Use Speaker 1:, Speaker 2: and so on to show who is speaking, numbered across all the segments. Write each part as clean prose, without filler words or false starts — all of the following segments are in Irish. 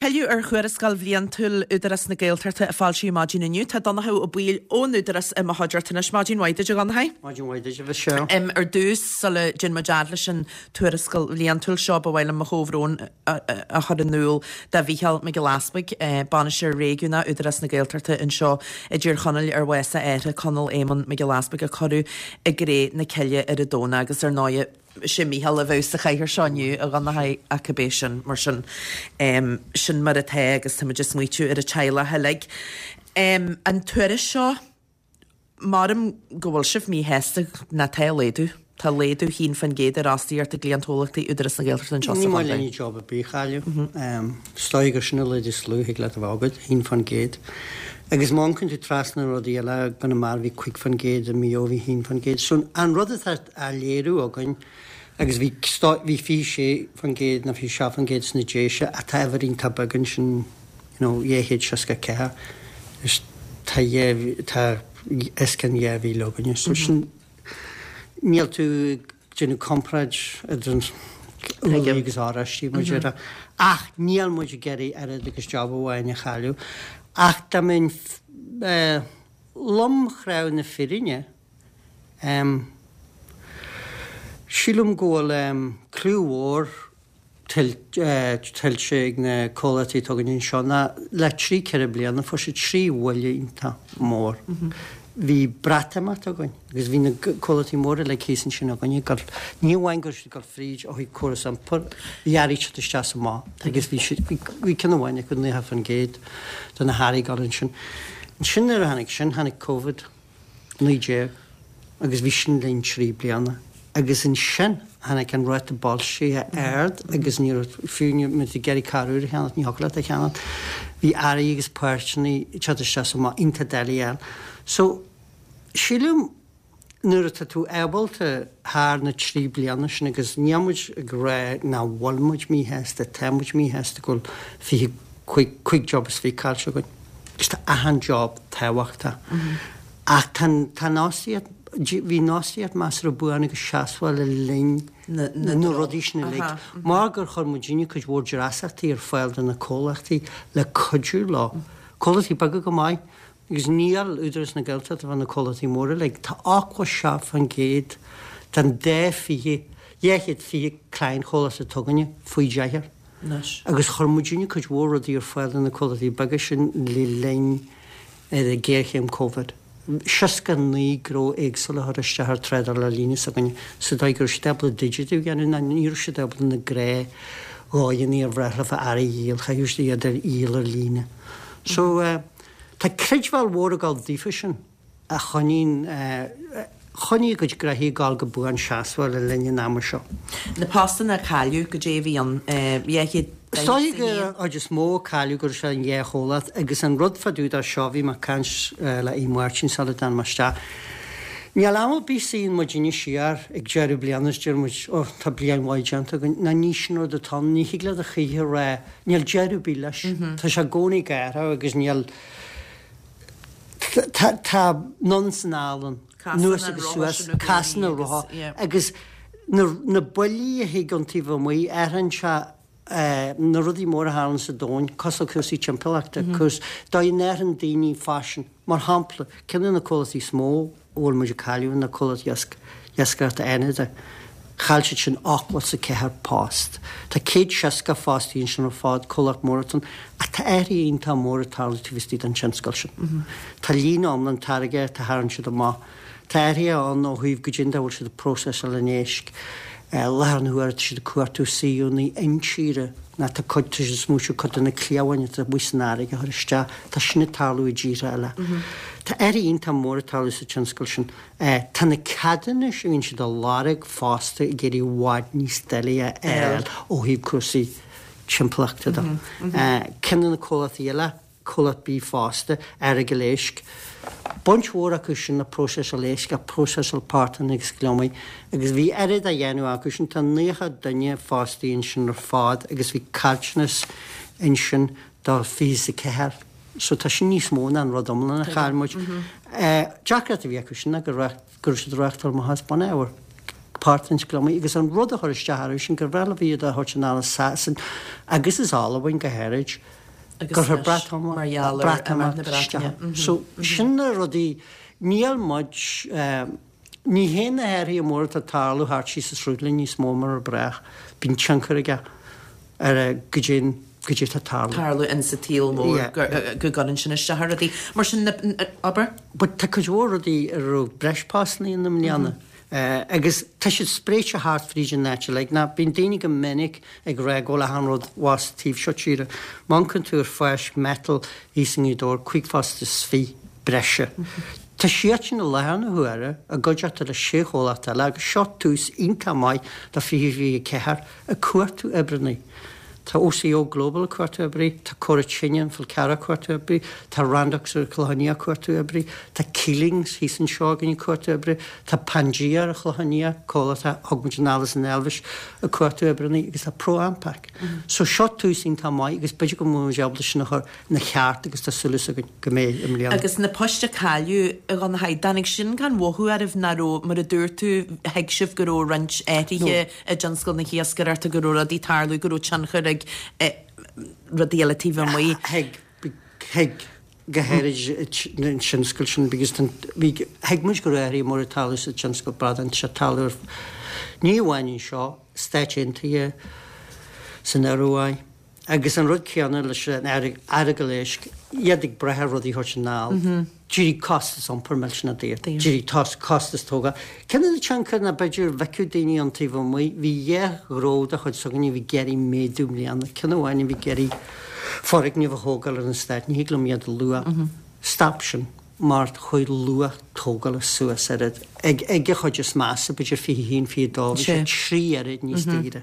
Speaker 1: Pilleadh ar Thuarascáil Bhliantúil Údarás na Gaeltachta a foilsíodh maidin inniu. Tá Donnchadh Ó Baoill ón Údarás i mo chuideachta anois. Maidin mhaith duit, a Dhonnchaidh.
Speaker 2: Maidin mhaith duit, a Mhichelle.
Speaker 1: Ar dtús, sula dtéann muid fhad leis an tuarascáil bhliantúil seo, ba mhaith liom mo chomhbhrón a chur in iúl do Mhícheál Mac Giolla Easpaig, Bainisteoir Réigiúnach Údarás na Gaeltachta anseo i dTír Chonaill ar bhás a athar, Conall Éamonn Mac Giolla Easpaig, a cuireadh i gcré na cille ar an Domhnach agus ar ndóigh, Sé Mícheál a bheadh sa chathaoir seo inniu, a Dhonnchaidh, ach cibé sin, mar sin, sin mar atá agus táimid ag smaoitiú ar an teaghlach uilig. An tuairisc seo, maram go bhfuil sibh míshásta, ná tá laghdú, tá laghdú 1% ar fhostaíocht i gcliantchomhlachtaí Údarás na Gaeltachta anseo sa
Speaker 2: Ní maith
Speaker 1: chontae.
Speaker 2: linn job ar bith a chailleadh. Is dóigh gur sin an laghdú is lú a thig leat a bheith agat, 1%. Agus má amharcann tú trasna na rudaí eile, i gConamara bhí 5% i Maigh Eo bhí 1%. So an rud atá á léiriú againn agus bhí bhí 26% nó 27% sna Déise ach tá uimhir iontach beag ansin you know 264 is tá tá os cionn 2,000 againne so sin níl tú ag déanamh comparáid idir an úllaí agus oráistí mar a déarfá ach níl muid ag iarraidh oiread agus job amháin a chailleadh ach dá mbeinn lomchráite na fírinne Em. Sílim go bhfuil em clú mhór tuillte ag na comhlachtaí atá againn anseo ná le trí ceithre bliana fuair siad trí bhuille iontach mór. Bhí Breatimeacht againn agus bhí na comhlachtaí móra uilig thíos ansin againn ag dul, ní amháin go raibh siad ag dul fríd ó thaobh córas iompair, bhí earraí ag teacht isteach is amach agus bhí siad, bhí ceann amháin acu 90% de na hearraí ag dul ansin. Ansin nuair a tháinig sin, tháinig Covid. 19 agus bhí sin linn 3 bliana agus ansin tháinig an ráta boilscithe ard agus ní raibh, fiú má bhí tú ag iarraidh carr úr a cheannacht, ní thiocfadh leat é a cheannacht. Bhí earraí agus páirteanna ag teacht isteach is amach iontach doiligh a fháil. So, sílim nuair atá tú ábalta thar na trí bliana sin agus níl muid ag rá nach bhfuil muid míshásta, tá muid míshásta go bhfuil 25, 5 job is 20 caillte againn. Agus tá achan job tábhachtach. Ach tá an fhostaíocht, bhí an fhostaíocht measartha buan agus seasmhach le linn na rudaí sin uilig. Mar gur chuir muidinne cuid mhór dreasachtaí ar fáil do na comhlachtaí le cuidiú leo. Comhlachtaí beaga go maith, agus níl Údarás na Gaeltachta bheith na comhlachtaí móra uilig. Tá 87% den dá 20, 220 cliantchomhlacht atá againne faoi deichniúr.
Speaker 1: anois.
Speaker 2: Agus chuir muidinne cuid mhór rudaí ar fáil do na comhlachtaí beaga sin le linn ghéarchéim Covid. 69 gnó éagsúla a chuir isteach ar trádáil ar líne s'againne sa dóigh go raibh siad ábalta digitiú a dhéanamh ná ní raibh siad ábalta na gnáthdhóigheanna ar bhreá leofa earraí a dhíol, chaithfeadh siad iad a dhíol ar líne. So tá creidbheáil mhór ag dul daofa sin. a choinníonn choinnigh a gcuid gnoithí ag dul go buan seasmhach le linn an ama seo.
Speaker 1: Na postanna a cailleadh, goidé a bhí ann, 241?
Speaker 2: Is dóigh gur an chuid is mó a cailleadh go raibh sé an dhá chomhlacht agus an rud fá dtaobh de seo, bhí mé ag caint le Aodh Máirtín sula dtáinig mé isteach. Níl am ar bith suíonn muidinne siar ag deireadh bliana is deir muid, oh tá bliain mhaith déanta againn. Ná ní sin rud atá ann, ní thig leat a choíche a rá, níl deireadh ar bith leis. Tá sé i gcónaí ag athrú agus níl. Tá anonn is anall ann, anuas agus suas, casann an rotha agus na buillí a thig ón taobh amuigh, athraíonn sé na rudaí móra a tharlaíonn sa domhan, cosúil le cúrsaí timpeallachta, cúrsaí, dóigh a n-athraíonn daoine faisean. Mar shampla, ceann de na comhlachtaí is mó a bhfuil muid ag cailleadh ná comhlacht iascaireachta Fhánada. Chaill siad sin 84 post. Tá 160 fostaí ansin ar fad, comhlacht mór atá ann. Ach tá athruithe iontach mór ag tarlú taobh istigh den tionscal sin. Tá líne iomlán táirgeachta a tharraing siad amach. Tá athruithe ann ó thaobh goidé an dóigh a bhfuil siad ag próiseáil an éisc. I láthair na huaire tá siad ag cuartú suíomhanna intíre ná tá cuid, tá siad ag smaoitiú cuid de na cliabháin atá amuigh san fharraige a chur isteach. Tá sin ag tarlú i dtíortha eile. Tá athruithe iontach mór ag tarlú sa tionscal sin. Tá na ceadúnais a bhíonn siad a lorg fosta ag éirí i bhfad níos doiligh a fháil ó thaobh cúrsaí timpeallachta de. Ceann de na comhlachtaí eile, comhlacht bídh fosta, Earagail Éisc. Baint mhór acu sin le próiseáil éisc ach próiseáil portáin agus gliomaigh agus bhí oiread á dhéanamh acu sin, tá 90 duine fostaí ansin ar fad agus bhí caillteanas ansin do 24 so tá sin níos mó ná an rud iomlán a chaill muid. Deacracht a bhí acu sin ná go raibh siad ag reáchtáil amach as bunábhar. Páirt den gliomaigh agus an rud a chuir isteach orthu sin gur bhreá leo iad a thabhairt anall as Sasain agus as Albain go háirid gur chuir Breatimeacht isteach. So sin na rudaí, níl muid, ní hé na hathruithe móra atá ag tarlú thart síos an sruthlín níos mó mar brách, bíonn tionchar aige ar goidé goidé atá ag tarlú.
Speaker 1: tarlú in sa tsaol mór go gcuireann sin isteach ar rudaí. Mar sin, abair.
Speaker 2: But tá cuid mhór rudaí a raibh breis postanna ann i mbliana. Agus tá siad spréite thart fríd an áit uilig. Now bíonn daoine go minic ag rá go bhfuil achan rud abhus taobh seo tíre. Má amharcann tú ar phoist metal thíos i nGaoth Dobhair, 25 phost breise. Tá siadsan i láthair na huaire i gcuideachta le sé chomhlacht eile agus seo tús iontach maith do 2024 ag cuartú oibreanna. Tá OCO Global ag cuartú oibrí, tá Cora Tine an Fhál Carrach ag cuartú oibrí, tá Randox ar an Chlochán Liath ag cuartú oibrí, tá Keelings thíos anseo againn ag cuartú oibrí, tá Pangea ar an Chlochán Liath, comhlacht a thug muid anall as an Eilvéis, ag cuartú oibreanna agus tá ProAmpac. So seo tús iontach maith agus b'fhéidir go mbeidh muid ábalta sin a chur ina cheart agus tá súil againn go mbeidh i mbliana.
Speaker 1: Agus na poist a cailleadh, a Dhonnchadha, dtáinig sin gan mhothú oraibh nach raibh, mar a dúirt tú, thuig sibh go raibh roinnt athruithe i dtionscal na hiascaireachta, go raibh rudaí ag tarlú, go raibh tionchar ag rudaí eile taobh amuigh.
Speaker 2: Thuig, thuig, go háirid an tionscal sin because bhí, thuig muid go raibh athruithe móra ag tarlú sa tionscal bradán, tá sé ag tarlú ar, ní amháin anseo, Stáit Aontaithe, san Ioruaidh. Agus an rud céanna leis an Earagail éisc, iad ag brath ar rudaí a thabhairt anall. D'éirigh costas iompair millteanach daor. D'éirigh costas tógála. Ceann de na tionchair ná b'fhéidir bhfeicfeadh daoine ón taobh amuigh, bhí dhá ghnó de chuid s'againne a bhí ag iarraidh méadú i mbliana. Ceann amháin a bhí ag iarraidh foirgneamh a thógáil ar an stát, ní thig liom iad a lua. Stop sin mar chuaigh luach tógála suas oiread. Ag an chuid is measa, b'fhéidir 21, 22, bhí sé trí oiread níos daoire.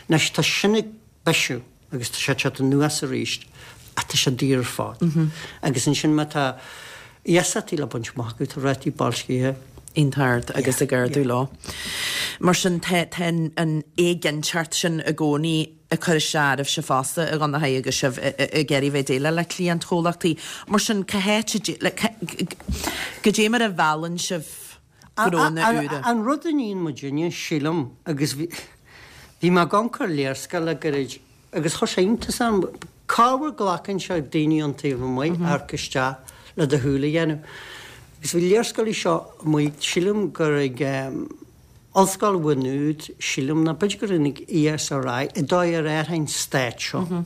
Speaker 2: Anois tá sin ag. bisiú agus tá sé ag teacht anuas arís ach tá sé daor ar fad. Agus ansin má tá iasachtaí le baint amach agat, tá rátaí boilscithe.
Speaker 1: iontach ard agus ag ardú leo. Mar sin tá tá an éiginnteacht sin i gcónaí ag cur isteach oraibhse fosta a Dhonnchadha agus sibh ag iarraidh bheith ag déileáil le cliantchomhlachtaí. Mar sin cá háit a goidé mar a mheallann sibh gnónna úra?
Speaker 2: An rud a níonn muidinne, sílim, agus bhí mé ag amharc ar léarscáil le gairid agus chuir sé iontas orm, corruair glacann sé daoine ón taobh amuigh amharc isteach le do shúil a dhéanamh. Agus bhí léarscáil seo amuigh, sílim gur ag Ollscoil Mhaigh Nuad, sílim, nó b'fhéidir gur ag ESRI, an dóigh ar athraigh an stát seo.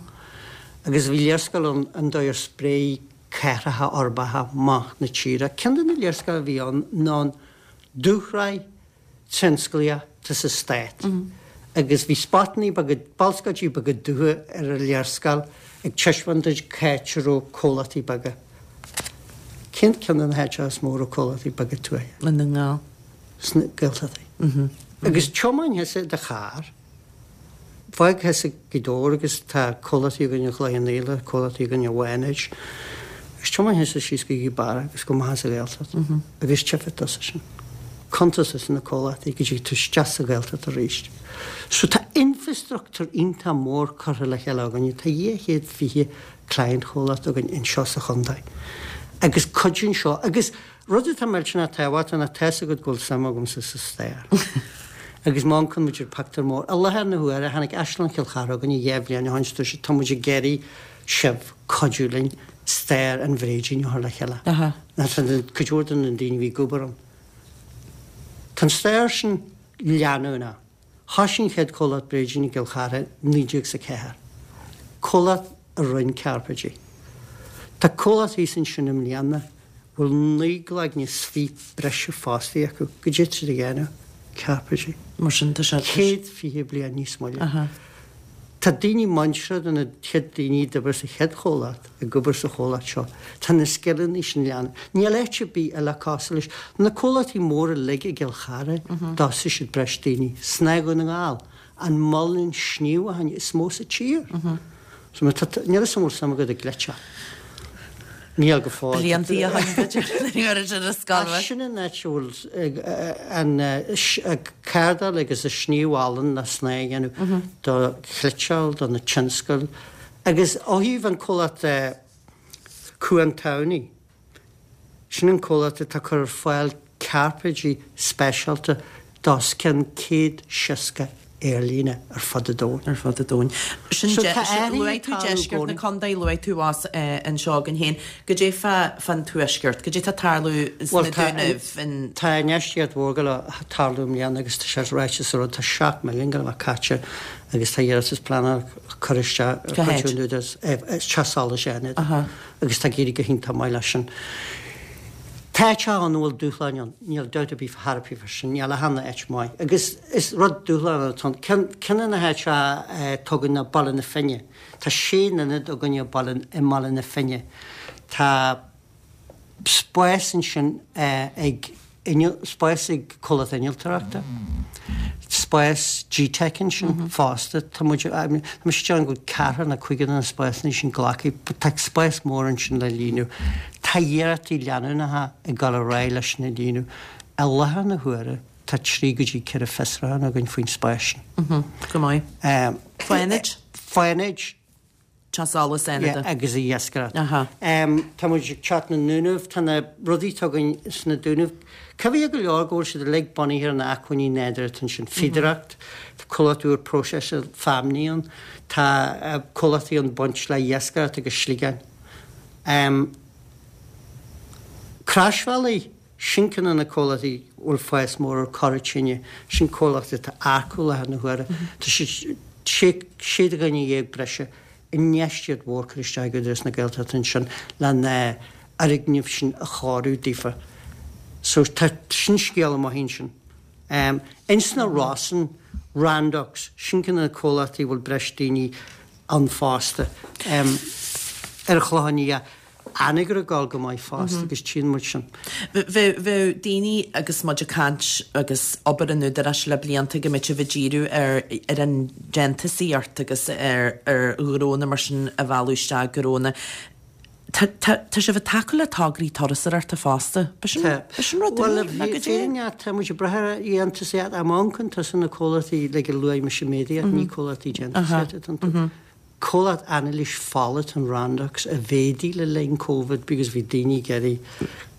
Speaker 2: Agus bhí léarscáil ann an dóigh ar spréigh cathracha uirbeacha amach na tíre. Ceann de na léarscáil a bhí ann ná an dúshraith tionsclaíoch atá sa stát agus bhí spotannaí beaga, balscóidí beaga dubha ar an léarscáil ag taispeáint duit cá háit a raibh comhlachtaí beaga. Cén ceann de na háiteacha is mó a raibh comhlachtaí beaga tuaithe?
Speaker 1: I nDún na nGall.
Speaker 2: Sna Gaeltachtaí. Agus tiomáin thusa i do charr. Fág thusa Gaoth Dobhair agus tá comhlachtaí againn i gCloich Cheann Fhaola, comhlachtaí againn i bhFánaid, agus tiomáin thusa síos go Gaoth Beara agus go amach as an Ghaeltacht agus tchífidh tusa sin. Cuntas tusa na comhlachtaí go dtig tú isteach sa Ghaeltacht arís. So tá infreastruchtúr iontach mór curtha le chéile againne, tá 220 client chomhlacht againn anseo sa chontae agus cuidíonn seo agus Rud atá millteanach tábhachtach ná tá's agat go bhfuil suim agamsa sa stair. Agus má amharcann muid ar pictiúr mór, i láthair na huaire, tháinig Áislann Chill Chartha chugainne dhá bhliain ó shin is dúirt siad tá muid ag iarraidh sibh cuidiú linn stair an bhréidín a chur le chéile. Tá cuid mhór de na daoine a bhí ag obair ann. Tá an stair sin leanúnach. Thoisigh an chéad chomhlacht bréidín i gCill Chartha i 1904, comhlacht a rinne cairpéidí. Tá comhlacht thíos ansin i mbliana a bhfuil 19 gcloigne is 20 breise fostaí acu. Goidé tá siad a dhéanamh? Cairpéidí.
Speaker 1: Mar sin tá sé.
Speaker 2: 120 bliain níos moille. Tá daoine muinteartha de na chéad daoine a d'oibir sa chéad chomhlacht ag obair sa chomhlacht seo. Tá na scileanna sin leanúnach. Níl áit ar bith eile cosúil leis. Na comhlachtaí móra uilig i gCill Chartha, d'fhostaigh siad breis daoine. Snáth Dhún na nGall, an muileann sníomhacháin is mó sa tír. So má tá, níl 'fhios a'm an bhfuil suim agat i gcleiteach. Níl go fóill.
Speaker 1: Blianta ó shin b'fhéidir nuair a bhí ar scoil.
Speaker 2: Ach sin an áit a bhfuil an cardáil agus an sníomh olann le snáth a dhéanamh do chniotáil, do na tionscail. Agus ó thaobh an comhlacht Cuan Tamhnaí, sin an comhlacht atá ag cur ar fáil cairpéidí speisialta. D'os cionn 160 aerlíne ar fud an domhain.
Speaker 1: Ar fud an domhain. Sin So tá athruithe Luaigh ag tú tarlú i deisceart na gcónaí. contae, luaigh tú abhus anseo againn féin. Goidé fá fán tuaisceart? Goidé tá ag tarlú
Speaker 2: sna Bhuel tá Dúnaibh, in. Tá infheistíocht mhór ag gabháil a tarlú i mbliana agus tá sé ráite sa rud, tá 7 milliún ag gabháil a bheith caite agus tá iarratas pleanála curtha isteach ar Cá chuid háit? an Údarás, Teach Solais Fhánada Aha. agus tá ag éirí go hiontach maith leis sin. Tá áiteacha ann a bhfuil dúshláin ann, níl dabht ar bith thar a bith faoi sin, níl achan áit maith. Agus is rud dúshlánach atá ann. Ceann, ceann de na háiteacha atá againn ná Baile na Finne. Tá sé n-ionad againn i Baile, i mBaile na Finne. Tá spás ansin ag inneall, spás ag comhlacht innealtóireachta, spás GTeic ansin fosta. Tá muid, tá mise ag déanamh go bhfuil ceathrar nó cúigear de na spásanna sin glactha, but tá spás mór ansin le líonadh. Tá iarrachtaí leanúnacha ag dul ar aghaidh leis sin a líonadh. I láthair na huaire tá 3 go dtí 4 fiosrúchán againn faoin spás sin.
Speaker 1: Go maith. Fánaid?
Speaker 2: Fánaid.
Speaker 1: Teach Solais
Speaker 2: Fhánada. Agus iascaireacht. Tá muid ag teacht na nDúnaibh, tá na rudaí atá againn sna Dúnaibh, cuibhithe go leor go bhfuil siad uilig bunaithe ar na acmhainní nádúrtha atá ansin, fíodóireacht, tá comhlacht úr próiseála feamnaí ann, tá comhlachtaí ann baint le iascaireacht agus sliogáin. Croisbhealaí. Sin ceann de na comhlachtaí a bhfuil fás mór ar Cora Tine. Sin comhlacht atá ag earcú i láthair na huaire. Tá siad sé dhuine dhéag breise, infheistíocht mhór curtha isteach ag Údarás na Gaeltachta ansin le na fhoirgnimh sin a chóiriú daofa. So tá sin scéal amuigh ansin. Ins na Rosann, Randox, sin ceann de na comhlachtaí a bhfuil breis daoine ann fosta. Ar an Chlochán Liath. Anagaire ag dul go maith fosta agus tchíonn muid sin.
Speaker 1: Bheadh daoine agus muid ag caint agus obair an Údaráis le blianta go mbeadh sibh ag díriú ar ar an déantúsaíocht agus ar ar ghnónna mar sin a mhealladh isteach gnónna. Tá tá tá sibh ag tacú le tograí turasóireachta fosta. B'shin
Speaker 2: Tá.
Speaker 1: b'shin rud
Speaker 2: Bhuel, úr ná goidé? fírinne, tá muid ag brath ar dhéantúsaíocht. Má amharcann tusa na comhlachtaí like a luaigh mise méadaíocht, ní comhlachtaí déantúsaíochta atá iontu. Comhlacht anailís fola atá in Randox a mhéadaigh le linn Covid because bhí daoine ag iarraidh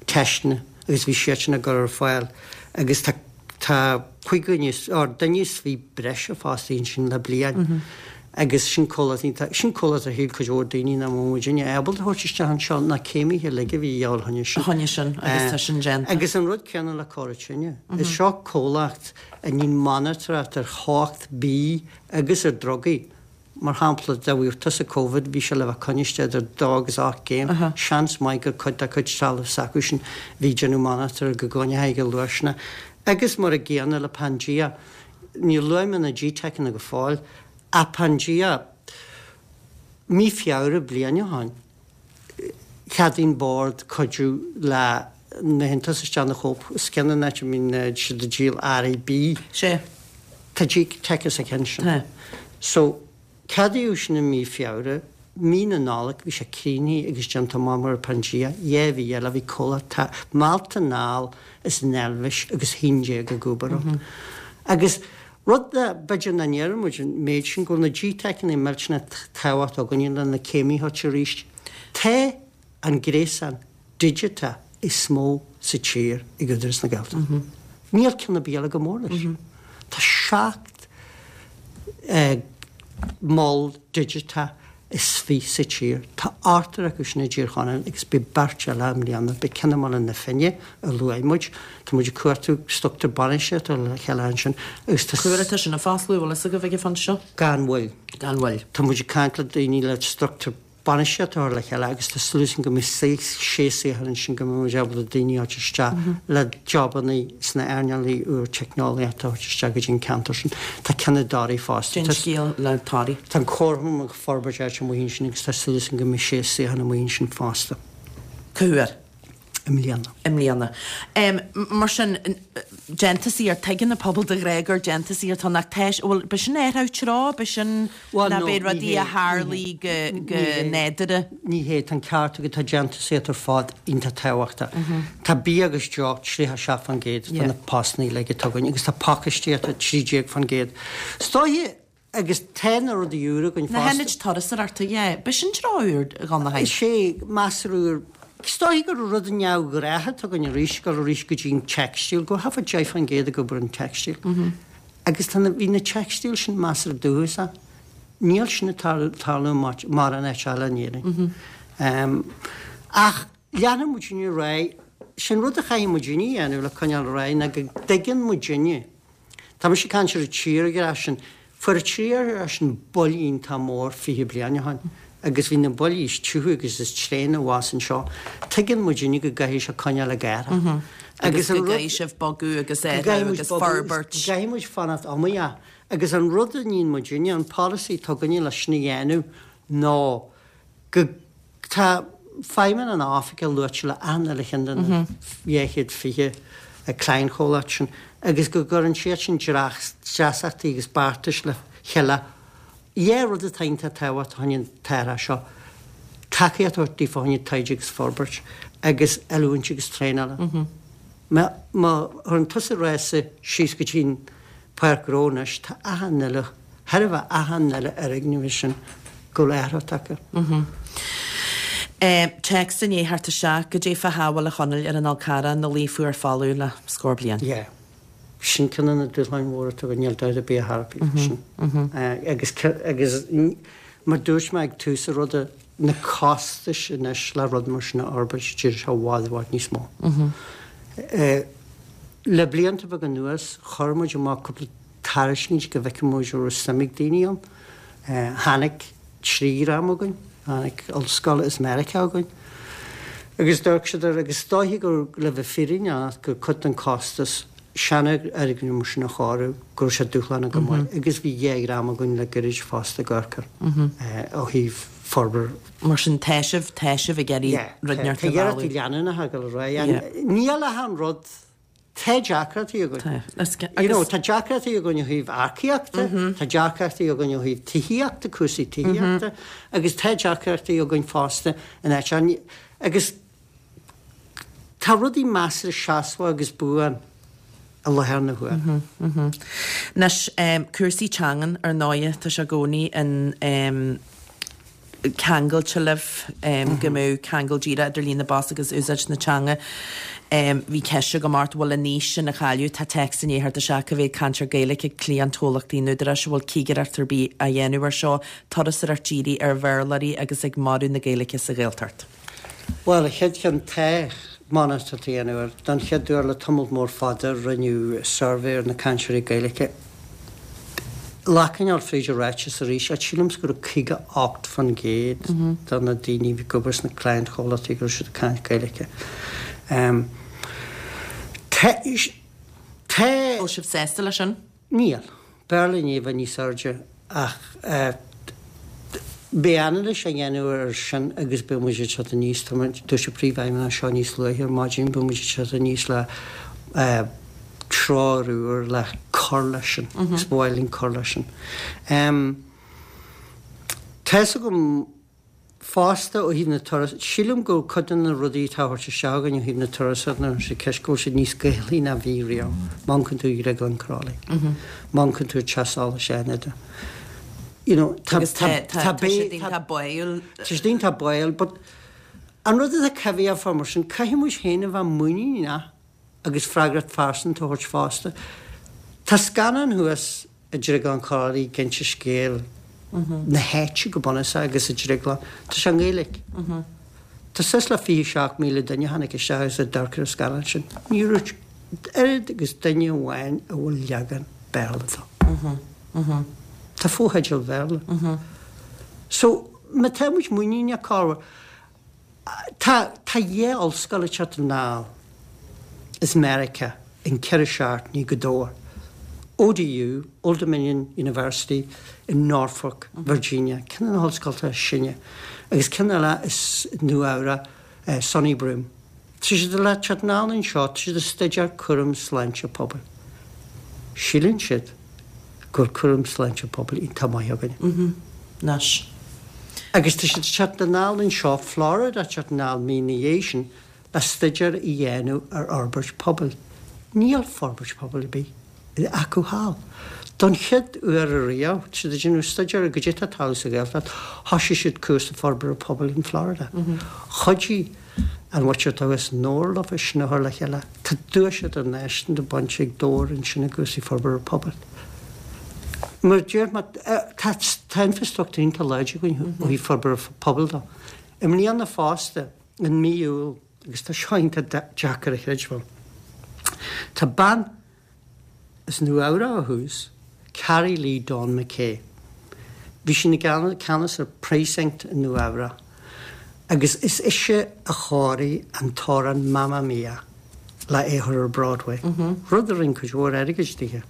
Speaker 2: teisteanna agus bhí siadsan á gcur ar fáil agus tá tá 5 dhuine or duine is 20 breise fostaithe ansin le bliain agus sin comhlacht iontach sin comhlacht a shíl cuid mhór daoine nach mbeadh muidinne ábalta a thabhairt isteach anseo na céimithe uilig a bhí a dhíobháil choinne sin.
Speaker 1: Choinne sin agus tá sin déanta.
Speaker 2: Agus an rud céanna le Cora Tine. Is seo comhlacht a níonn monatóireacht ar theocht bídh agus ar drugaí. Mar shampla, dá bhfaigheadh tusa Covid, bhí sé le bheith coinnithe idir dó agus 8 gcéim. Seans maith gur cuid dá cuid trealamh s'acu sin a bhí ag déanamh monatóir go gcoinneochaí go luath Agus mar a gcéanna le Pangea, níor luaigh mé na GTeiceanna go fóill, ach Pangea, mí Feabhra bliain ó shoin, Cheadaigh an Bord cuidiú le na hiontais isteach ina chóip is ceann an áit a mbíonn siad ag díol earraí bídh.
Speaker 1: Sea.
Speaker 2: Tá GTeic sa cheann sin.
Speaker 1: Tá.
Speaker 2: So, ceadaíodh sin i mí Feabhra. Mí na Nollag bhí sé críochnaithe agus déanta amach mar Pangea. 2 mhí eile bhí comhlacht meallta anall as an Eilvéis agus 11 ag obair ann. Agus rud a b'fhéidir nach ndeireann muid an méid sin go bhfuil na GTeiceanna millteanach tábhachtach againne le na céimithe a thabhairt arís. Tá an gréasán digiteach is mó sa tír ag Údarás na Gaeltachta. Níl ceann ar bith eile chomh mór leis. Tá 17 mol digiteach is 20 sa tír. Tá ochtar acu sin i dTír Chonaill agus beidh beirt eile i mbliana. Beidh ceann i mBaile na Finne a luaigh muid. Tá muid ag cuartú struchtúr bainistíochta le chéile ansin
Speaker 1: agus tá. Cá huair atá sin ag fosclú, bhfuil fhios agaibh ag an phointe seo?
Speaker 2: Gan mhoill.
Speaker 1: Gan mhoill.
Speaker 2: Tá muid ag caint le daoine le struchtúr bainistíochta a chur le chéile agus tá súil againn go mbeidh sé saothar ansin go mbeidh muid ábalta daoine a thabhairt isteach le jobanna sna earnálaí úr teicneolaíochta a thabhairt isteach go dtí an ceantar sin. Tá ceann i dToraigh fosta.
Speaker 1: Cén scéal le Toraigh.
Speaker 2: Tá an comharchumann ag forbairt áit amuigh ansin agus tá súil againn go mbeidh sé saothar amuigh ansin fosta.
Speaker 1: Cá huair?
Speaker 2: I mbliana.
Speaker 1: I mbliana. Mar sin, déantúsaíocht, tuigeann an pobal de ghnáth gur déantúsaíocht atá ann ach tá, bhuel, b'shin athrú treo, b'shin
Speaker 2: Bhuel,
Speaker 1: ná
Speaker 2: no,
Speaker 1: b'é
Speaker 2: ní
Speaker 1: rudaí
Speaker 2: hé,
Speaker 1: a
Speaker 2: ní hé,
Speaker 1: tharlaigh go,
Speaker 2: ní
Speaker 1: go
Speaker 2: hé.
Speaker 1: nádúrtha.
Speaker 2: Ní hé, tá an ceart agat, tá déantúsaíocht ar fad iontach tábhachtach. Tá bia agus deoch 37% de na postanna uilig atá againn agus tá pacáistíocht 13%. Is dóiche, Agus tá na rudaí úra againn
Speaker 1: Na
Speaker 2: fosta.
Speaker 1: hionaid turasóireachta, yeah. B'shin treo úr dhon na
Speaker 2: Is é, measartha úr. Is dóichí gur rud neamhghnách atá againn arís, dul arís go dtí an teicstíl, go thart fá 10% ag obair an teicstíl. Agus tá na, bhí na teicstíl sin measartha dúchasach. Níl sin ag tarlú mórán áit eile in Éirinn. Ach leanfaidh muidinne ar aghaidh. Sin rud a chaithfidh muidinne a dhéanamh le coinneáil ar aghaidh ná go dtuigeann muidinne. Tá mise ag caint ar an tírdhreach sin. Fuair an tírdhreach sin buille iontach mór 20 bliain ó shin agus bhí na buillí is tiubha agus is tréine abhus anseo. Tuigeann muidinne go gcaithfidh sé coinneáil ag athrú.
Speaker 1: Agus go gcaithfidh sibh bogadh agus athrú agus forbairt.
Speaker 2: Go gcaithfidh muid fanacht iomaíoch. Agus an rud a níonn muidinne, an polasaí atá againne leis sin a dhéanamh ná go, tá feidhmeanna na hoifige luaite le achan uile cheann de na 220 cliantchomhlacht sin agus go gcuireann siad sin dreasachtaí agus beartais le chéile. Dhá rud atá iontach tábhachtach fá choinne an t-athrach seo, tacaíocht a thabhairt daofa fá choinne taighde agus forbairt agus oiliúint agus traenála. Má chuireann tusa rása síos go dtí an Páirc Ghnó anois, tá achan uile, chóir a bheith achan uile fhoirgneamh sin go bhfuil athrú tagtha.
Speaker 1: Téacs i ndiaidh theacht isteach, Goidé fá shábháil a Chonaill ar an Fhál Carrach ina luí fuar folamh le scór bliain.
Speaker 2: Yeah. Sin ceann de na dúshláin mhóra atá againn, níl dabht ar bith ar bith faoi sin. Agus, agus mar dúirt mé ag tús an ruda, na costais anois le rud mar sin a fhorbairt, d'éirigh sé i bhfad, i bhfad níos mó. Le blianta beaga anuas, chuir muid amach cúpla tairiscint go bhfeicfeadh muid an raibh suim ag daoine ann. Tháinig trí dhream chugainn, tháinig ollscoil as Meiriceá chugainn agus d'amharc siad air agus is dóiche gur, le bheith fírinneach, gur cuid den costas seanfhoirgneamh mar sin a chóiriú, go raibh sé dúshlánach go maith agus bhí dhá dhream againn le gairid fosta ag amharc air ó thaobh forbairt.
Speaker 1: Mar sin, tá sibh, tá sibh ag iarraidh rud inteacht
Speaker 2: a mhealladh. Tá iarrachtaí leanúnacha ag dul ar aghaidh. Níl ach an rud, tá deacrachtaí againn. Tá. You know, tá deacrachtaí againn ó thaobh earcaíochta, tá deacrachtaí againn ó thaobh tithíochta, cúrsaí tithíochta, agus tá deacrachtaí againn fosta in áit, agus tá rudaí measartha seasmhach agus buan i láthair na huaire.
Speaker 1: Anois, cúrsaí teangan, ar ndóighe, tá sé i gcónaí in ceangailte libh, go mbeadh ceangal díreach idir líon na bpost agus úsáid na teanga. Bhí ceist agam ort, bhfuil an fhís sin á cailleadh? Tá téacs i ndiaidh theacht isteach, cá mhéad cainteoir Gaeilge ag cliantchomhlachtaí an Údaráis, an bhfuil cigireacht ar bith á dhéanamh air seo, turasóireacht dírithe ar Bhéarlóirí agus ag marú na Gaeilge sa Ghaeltacht?
Speaker 2: Bhuel, an chéad cheann, tá monatóireacht á dhéanamh air. Don chéad uair le tamall mór fada rinneadh suirbhé ar na cainteoirí Gaeilge. Le coinneáil fríd an ráiteas arís, ach sílimse go raibh 58% de na daoine a bhí ag obair sna cliantchomhlachtaí go raibh siad ag caint Gaeilge.
Speaker 1: Tá. Tá. Bhfuil sibh sásta leis sin?
Speaker 2: Níl. B'fhearr linn é a bheith níos airde ach beidh anailís á dhéanamh air sin agus beidh muid ag teacht aníos, tá muid, dúirt an Príomhfheidhmeannach seo níos luaithe ar maidin, beidh muid ag teacht aníos le treoir úr le cur leis sin agus ba mhaith linn cur leis sin. Tá's agam Fosta, ó thaobh na turas, sílim go bhfuil cuid de na rudaí atá á thabhairt isteach againn ó thaobh na turasóireachta nuair atá ceist go bhfuil siad níos Gaelaí ná bhí riamh. Má amharcann tú ar Dhrioglann Crolly, má amharcann tú ar Teach Solais Fhánada, you know, tá,
Speaker 1: Agus tá, tá, tá siad iontach báúil.
Speaker 2: Tá siad iontach báúil, but an rud atá coimhthíoch fá mar sin, caithfidh muid féin a bheith muiníneach agus freagracht phearsanta a thabhairt fosta. Tá scannán thuas i Drioglann Chrollaí ag inse scéal na háite go bunúsach agus an drioglann. Tá sé i nGaeilge. Tá suas le 27,000 duine a tháinig isteach agus a d'amharc ar an scannán sin. Ní raibh oiread agus duine amháin a bhfuil leagan Béarla dó. Tá fotheidil Bhéarla. So, má tá muid muiníneach cá Tá tá dhá ollscoil ag teacht anall as Meiriceá in 4 seachtainí go Dobhar, ODU, Old Dominion University in Norfolk, Virginia, ceann de na hollscoltacha is sine, agus ceann eile as Nua Eabhrac, SUNY Broome. Tá siad le teacht anall anseo, tá siad ag staidéar cúram sláinte pobail. Síleann siad go bhfuil cúram sláinte pobail iontach maith againne.
Speaker 1: Anois.
Speaker 2: Agus tá siad ag teacht anall anseo, Florida ag teacht anall mí ina dhiaidh sin le staidéar a dhéanamh ar fhorbairt pobail. Níl forbairt pobail ar bith acu thall. Don chéad uair ariamh, tá siad ag déanamh staidéar ar goidé atá ag tarlú sa Ghaeltacht, thosaigh siad cúrsa forbartha pobail in Florida. Chuidigh. An mhuintir atá thuas i nDobhar leofa sin a chur le chéile. Tá duais idirnáisiúnta bainte ag Dobhar ansin i gcúrsaí forbartha pobail. Mar a deir mé, tá tá infrastruchtúr iontach láidir againn ó thaobh forbartha pobail de. I mbliana fosta, in mí Iúil, agus tá seo iontach deacair a chreidbheáil, tá bean As Nua Eabhrac ó thús, Carrie Lee Dawn McKay. Bhí sí ina ceannas ar Precinct i Nua Eabhrac agus is ise a chóirigh an t-amhrán Mamma Mia le é a chur ar Broadway, rud a rinne cuid mhór airgid dithe.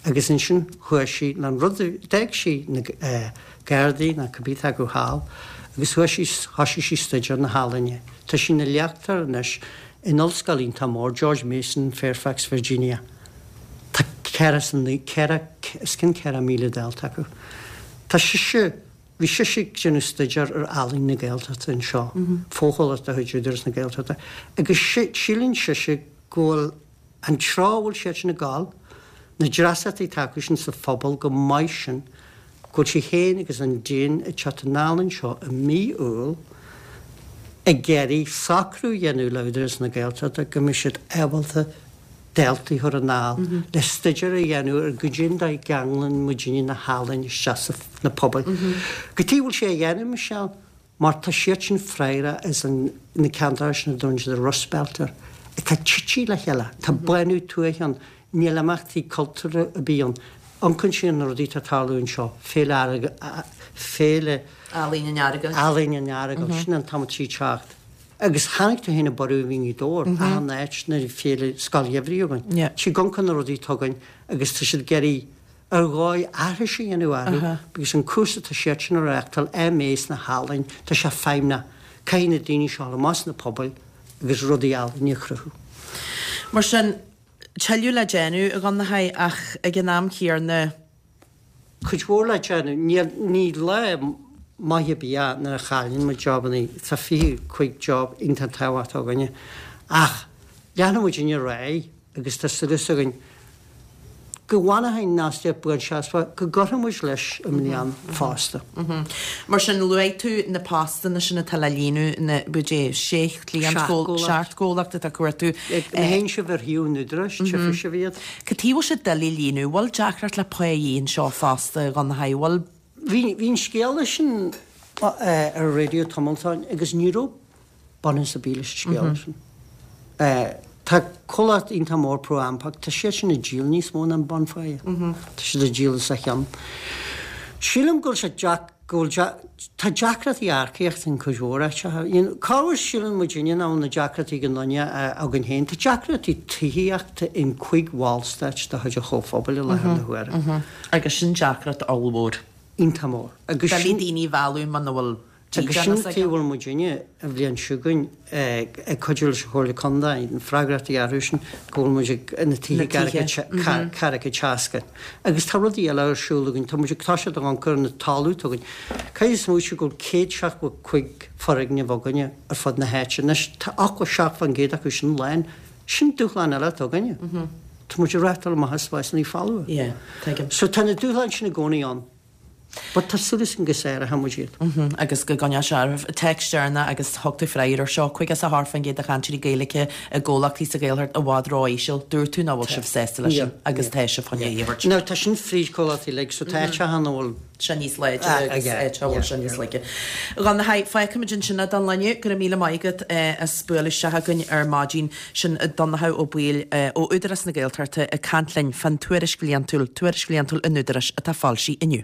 Speaker 2: Agus ansin chuaigh sí le an rud, d'fhág sí na Gardaí nó cibé atá acu thall agus chuaigh sí, thoisigh sí staidéar na healaíne. Tá sí ina léachtóir anois In ollscoil iontach mór, George Mason, Fairfax, Virginia, tá os cionn 4,000 dalta acu. Tá sise, bhí sise ag déanamh staidéar ar ealaín na Gaeltachta anseo, fochomhlacht de chuid Údarás na Gaeltachta, agus síleann sise go bhfuil an treo a bhfuil siad sin ag gabháil, na dreasachtaí atá acu sin sa phobal chomh maith sin, go bhfuil sí féin agus an Dean ag teacht anall anseo i mí Iúil ag iarraidh socrú a dhéanamh le Údarás na Gaeltachta go mbeidh siad ábalta daltaí a chur anall le staidéar a dhéanamh ar goidé an dóigh a gceanglann muidinne na healaíona isteach sna pobail. Cad chuige a bhfuil sé á dhéanamh, Michelle? Mar tá siad sin freagrach as an na ceantracha sin a dtugann siad an Rust Belt air, atá tite le chéile. Tá bánú tuaithe ann, níl imeachtaí cultúrtha ar bith ann. Amharcann siad ar na rudaí atá ag tarlú anseo, Féile Féile
Speaker 1: Ealaíon an Earagail.
Speaker 2: Ealaíon an Earagail, sin an t-am atá sí ag teacht. Agus chonaic tú féin an borradh a bhí i nGaoth Dobhair, achan áit nuair a bhí Féile Scoil Gheimhridh againn. Tá siad ag amharc ar na rudaí atá againn agus tá siad ag iarraidh ar dhóigh aithris a dhéanamh orthu because an cúrsa atá siad sin a reáchtáil, MA sna healaíona, tá sé feidhmeach. Caithfidh na daoine seo dul amach sna pobail agus rudaí ealaíne a chruthú.
Speaker 1: Mar sin, tuilleadh le déanamh, a Dhonnchadha, ach ag an am céanna.
Speaker 2: Cuid mhór le déanamh. Níl, ní lá maith ar bith é nuair a chailleann muid jobannaí. Tá 25 job iontach tábhachtach againne. Ach leanfaidh muidinne ar aghaidh agus tá súil againn go bhfanfaidh an fhostaíocht buanseasmhach, go gcuirfidh muid leis i mbliana fosta.
Speaker 1: Mar sin, luaigh tú na postanna sin atá le líonadh, na, goidé, sé chliant, seacht gcomhlacht atá ag cuartú.
Speaker 2: Má théann sibh ar shuíomh an Údaráis, tchífidh sibh iad.
Speaker 1: Cad chuige a bhfuil sé doiligh líonadh? Bhfuil deacracht le pá anseo fosta, a Dhonnchadha? Bhfuil?
Speaker 2: Bhí, bhí an scéala sin ar an raidió tamall ó shin agus ní raibh bunús ar bith leis an scéala sin. Tá comhlacht iontach mór ProAmpac, tá siad sin ag díol níos mó ná an bunpháighe. Tá siad ag díol os a chionn. Sílim go bhfuil sé deac, go bhfuil, tá deacrachtaí earcaíochta in cuid mhór áiteacha. You know, corruair síleann muidinne nach bhfuil na deacrachtaí ag an nduine againn féin. Tá deacrachtaí tithíochta in cuig bhallstáit de chuid an Chomhphobail i láthair na huaire.
Speaker 1: Agus sin deacracht ollmhór.
Speaker 2: Iontach mór.
Speaker 1: Agus sin. Doiligh daoine a mhealladh muna bhfuil
Speaker 2: Agus sin an tuige a bhfuil muidinne, an bhliain seo chugainn, ag cuidiú leis an Chomhairle Contae, na freagrachtaí orthu sin, go bhfuil muid ag na tithe ceathracha seasca. Agus tá rudaí eile ar siúl againn, tá muid ag toiseacht ag amharc ar an talamh atá againn. Caithfidh smaoitiú go bhfuil 175 foirgneamh againne ar fud na háite. Anois, tá 87% acu sin lán. Sin dúshlán eile atá againne. Tá muid ag reáchtáil amach as spásanna folmha. So tá na dúshláin sin i gcónaí ann. But tá súil againn go sáróidh muid iad.
Speaker 1: Agus go gcoinneoidh sé oraibh. Téacs deireanach agus thug tú freagra air seo, 58% de chainteoirí Gaeilge i gcomhlachtaí sa Ghaeltacht i bhfad ró-íseal. Dúirt tú nach bhfuil sibh sásta leis sin agus tá sibh chun é a thabhairt.
Speaker 2: Now tá sin fríd comhlachtaí uilig so tá áiteacha ann a bhfuil.
Speaker 1: sé níos láidre agus áiteacha a bhfuil sé níos laige. A Dhonnchadha, fágfaimid ansin é don lá inniu. Go raibh míle maith agat as bualadh isteach chugainn ar maidin. Sin Donnchadh Ó Baoill ó Údarás na Gaeltachta ag caint linn fán tuairisc bhliantúil, Tuairisc Bhliantúil an Údaráis atá foilsithe inniu.